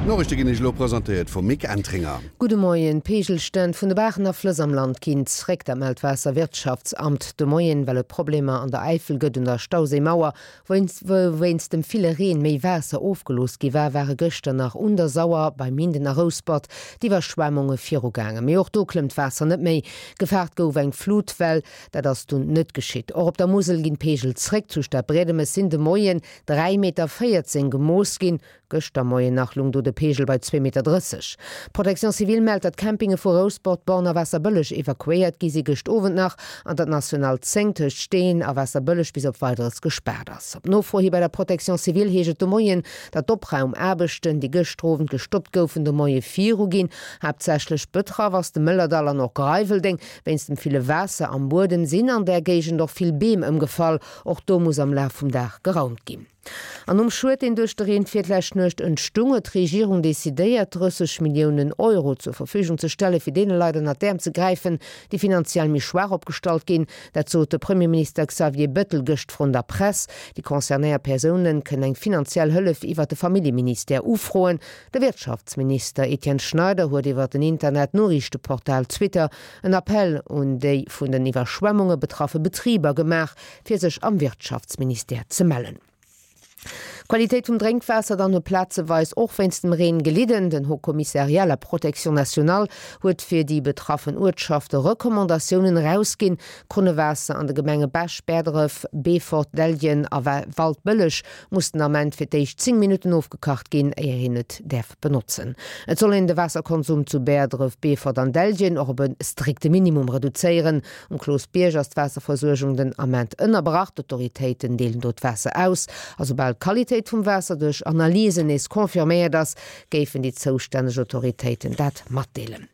D'Noriichte ginn Iech elo presentéiert vum Mick Entringer. Gudde Moien. D'Peegelstänn vun de Baachen a Flëss am Land ginn zréck. Dat mellt d'Waasserwirtschaftsamt de Moien, well et Problemer an der Äifel gëtt un der Stauséimauer. Wou wéinst dem ville Reen méi Waasser ofgelooss gi war, ware gëschter nach un der Sauer, bei Minden a Rouspert d'Iwwerschwemmunge virugaangen. Mee och do klëmmt d'Waasser net méi. Gefaart gouf eng Flutwell, dat ass dunn net geschitt. Och op der Musel ginn d'Peegel zréck. Zu Stadbriedemes sinn de Moien 3,14 Meter gemooss ginn. Gëschter Moien nach lung do de Peegel bei 2,30 Meter. D'Protection civile mellt, datt Campinge vu Rouspert, Born a Waasserbëlleg evakuéiert gi si gëscht Owend nach an datt d'National 10 tëscht Steeën a Waasserbëlleg bis op Weideres gespaart ass. Op Nofro hi bei der Protection civile heescht et de Moien, datt d'Opraumaarbechten, déi gëschter Owend gestoppt goufen, de Moie viru ginn. Haaptsächlech betraff ass de Mëllerdall an och Greiweldeng. Wéinst dem ville Waasser am Buedem sinn an där Géigend och vill Beem ëmgefall. Och do muss am Laf vum Dag geraumt ginn. An nom Schued, deen duerch de Reen virlescht Nuecht entstung, huet d'Regierung decidéiert, 30 Milliounen Euro zur Verfügung ze stelle fir deene Leit ënnert d'Äerm ze gräifen, déi finanziell méi schwaach opgestallt ginn. Dat sot de Premierminister Xavier Bettel gëscht vrun der Press. Déi concernéiert Persounen kënnen eng finanziell Hëllef iwwert de Familljeministère ufroen. De Wirtschaftsminister Etienne Schneider huet iwwer den Internet-Noriichteportal Twitter en Appell un déi vun den Iwwerschwemmunge betraffe Betriber gemaach, fir sech am Wirtschaftsministère ze mellen. D'Qualitéit vum Drénkwaasser dann huet plazeweis och wéinst dem Reen gelidden. Den Haut Commissariat à la Protection nationale huet fir déi betraffen Uertschafte Recommandatiounen erausginn. D'Krunnewaasser an de Gemenge Bech, Bäerdref, Beefort, Dellgen a Waldbëlleg muss den Ament fir d'éischt 10 Minutten ofgekacht ginn, éier een et däerf benotzen. Et soll een de Waasserkonsum zu Bäerdref, Beefort an Dellgen och op e strikte Minimum reduzéieren. Um Cloosbierg ass d'Waasserversuergung den Ament ënnerbrach. D'Autoritéiten deelen do d'Waasser aus. A soubal d'Qualitéit vum Waasser duerch Analysen nees confirméiert ass, géifen déi zoustänneg Autoritéiten dat matdeelen.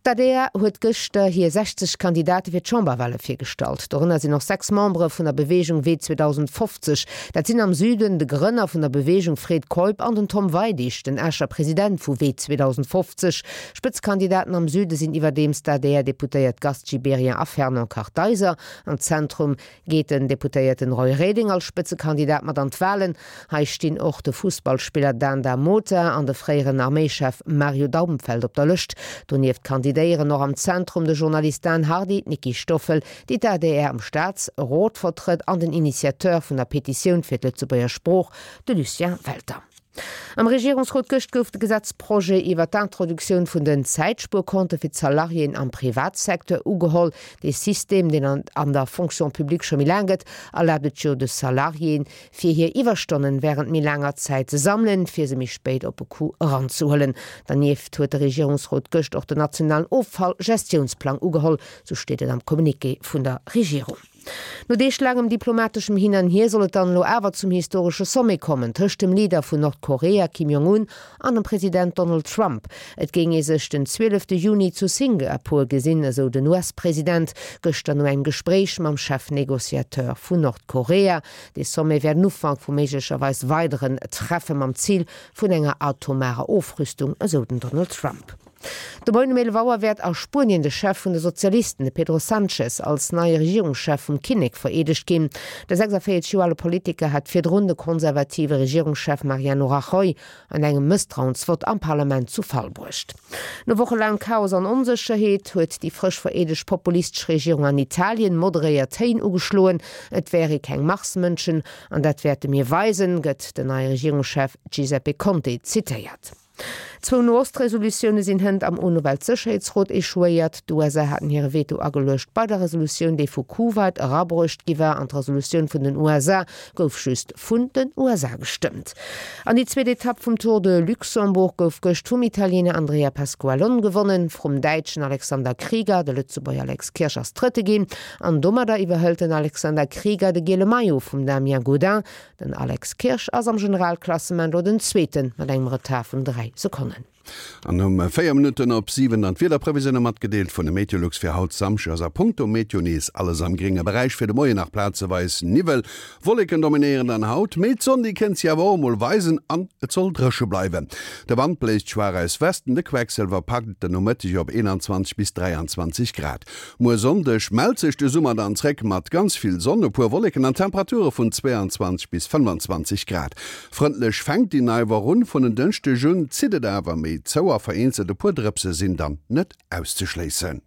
D'ADR huet gëschter hir 60 Kandidate fir d'Chamberwale virgestallt. Dorënner sinn och 6 Membere vun der Beweegung Wee 2050. Dat sinn am Süden de Grënner vun der Beweegung Fred Keup an den Tom Weidig, den Escher President vu Wee 2050. Spëtzekandidaten am Süde sinn iwwerdeems d'ADR-Deputéiert Gast Gibéryen a Fernand Kartheiser. Am Zentrum geet den Deputéierten Roy Reding als Spëtzekandidat mat an d'Walen. Hei stinn och de Fussballspiller Dan Da Mota an de fréieren Arméischef Mario Daumfeld op der Lëscht. Donieft kandidéieren och am Zentrum de Journalist Dan Hardy, d'Nicky Stoffel, déi d'ADR am Staatsrot vertrëtt, an den Initiateur vun der Petitioun fir d'Lëtzebuerger Sprooch, de Lucien Welter. Am Regierungsrot gëscht gouf de Gesetzprojet iwwer d'Introduktioun vun den Zäitspuerkonte fir d'Salariéen am Privatsecteur ugeholl. Dee System, deen an der Fonction publique scho méi laang gëtt, erlaabt et jo de Salariéen, fir hir Iwwerstonnen wärend méi laanger Zäit ze sammelen, fir se méi spéit op e Coup eranzehuelen. Dernieft huet de Regierungsrot gëscht och den nationalen Offallgestiounsplang ugeholl, sou steet et am Communiqué vun der Regierung. No deeglaangem diplomateschem Hin an Hier soll et dann elo awer zum historesche Sommet kommen tëscht dem Leader vun Nordkorea Kim Jong-un an dem President Donald Trump. Et géing ee sech den 12 Juni zu Singapur gesinn, esou den US-President gëschter no engem Gespréich mam Chefnegociateur vun Nordkorea. Dee Sommet wär den Ufank vu méiglecherweis weideren Treffe mam Zil vun enger atomarer Ofrüstung, esou den Donald Trump. De Moien um 11 Auer wäert a Spuenien de Chef vun de Sozialisten, de Pedro Sanchez, als neie Regierungschef vum Kinnek vereedegt ginn. De 46 Joer ale Politiker hat virdrun de konservative Regierungschef Mariano Rajoy an engem Mësstrauensvott am Parlament zu Fall bruecht. No wochelaangem Chaos an Onsécherheet huet déi frësch vereedegt populistesch Regierung an Italien moderéiert Téin ugeschloen. Et wäre keng Marsmënschen an dat wäerte mir weisen, gëtt den neie Regierungschef Giuseppe Conte zitéiert. Zwou No-Ost-Resolutioune sinn hënt am UNO-Weltsécherheetsrot echouéiert. D'USA haten hire Veto ageluecht bei der Resolutioun, déi vu Kuwait erabruecht gi war, an d'Resolutioun vun den USA gouf just vun den USA gestëmmt. An déi zweet Etapp vum Tour de Luxembourg gouf gëscht vum Italiener Andrea Pasqualon gewonnen, vrum Däitschen Alexander Krieger. De Lëtzebuerger Alex Kirsch ass Drëtte ginn an domadder iwwerhëlt den Alexander Krieger de giele Maillot vum Damien Gaudin. Den Alex Kirsch ass am Generalklassement elo den Zweeten mat engem Retard vun 3 Sekonnen. An um 4 Minutten op 7 dann d'Wiederprevisioune matgedeelt vun de Meteolux fir haut Samschdeg ass a punkto Meteo nees alles am grénge Beräich. Fir de Moien nach plazeweis Niwwel, Wolleken dominéieren dann haut, mee d'Sonn déi kënnt sech awer och emol weisen an et soll dréche bleiwen. De Wand bléist schwaach aus Westen, de Quecksëlwer packt et den Nomëtteg op 21 bis 23 Grad. Muer Sonndeg mellt sech de Summer dann zréck mat ganz vill Sonn, e puer Wolleken an Temperature vun 22 bis 25 Grad. Frëndlech fänkt déi nei Woch un, vun en Dënschdeg un zitt et awer méi zou a vereenzelt e puer Drëpse sinn dann net auszeschléissen.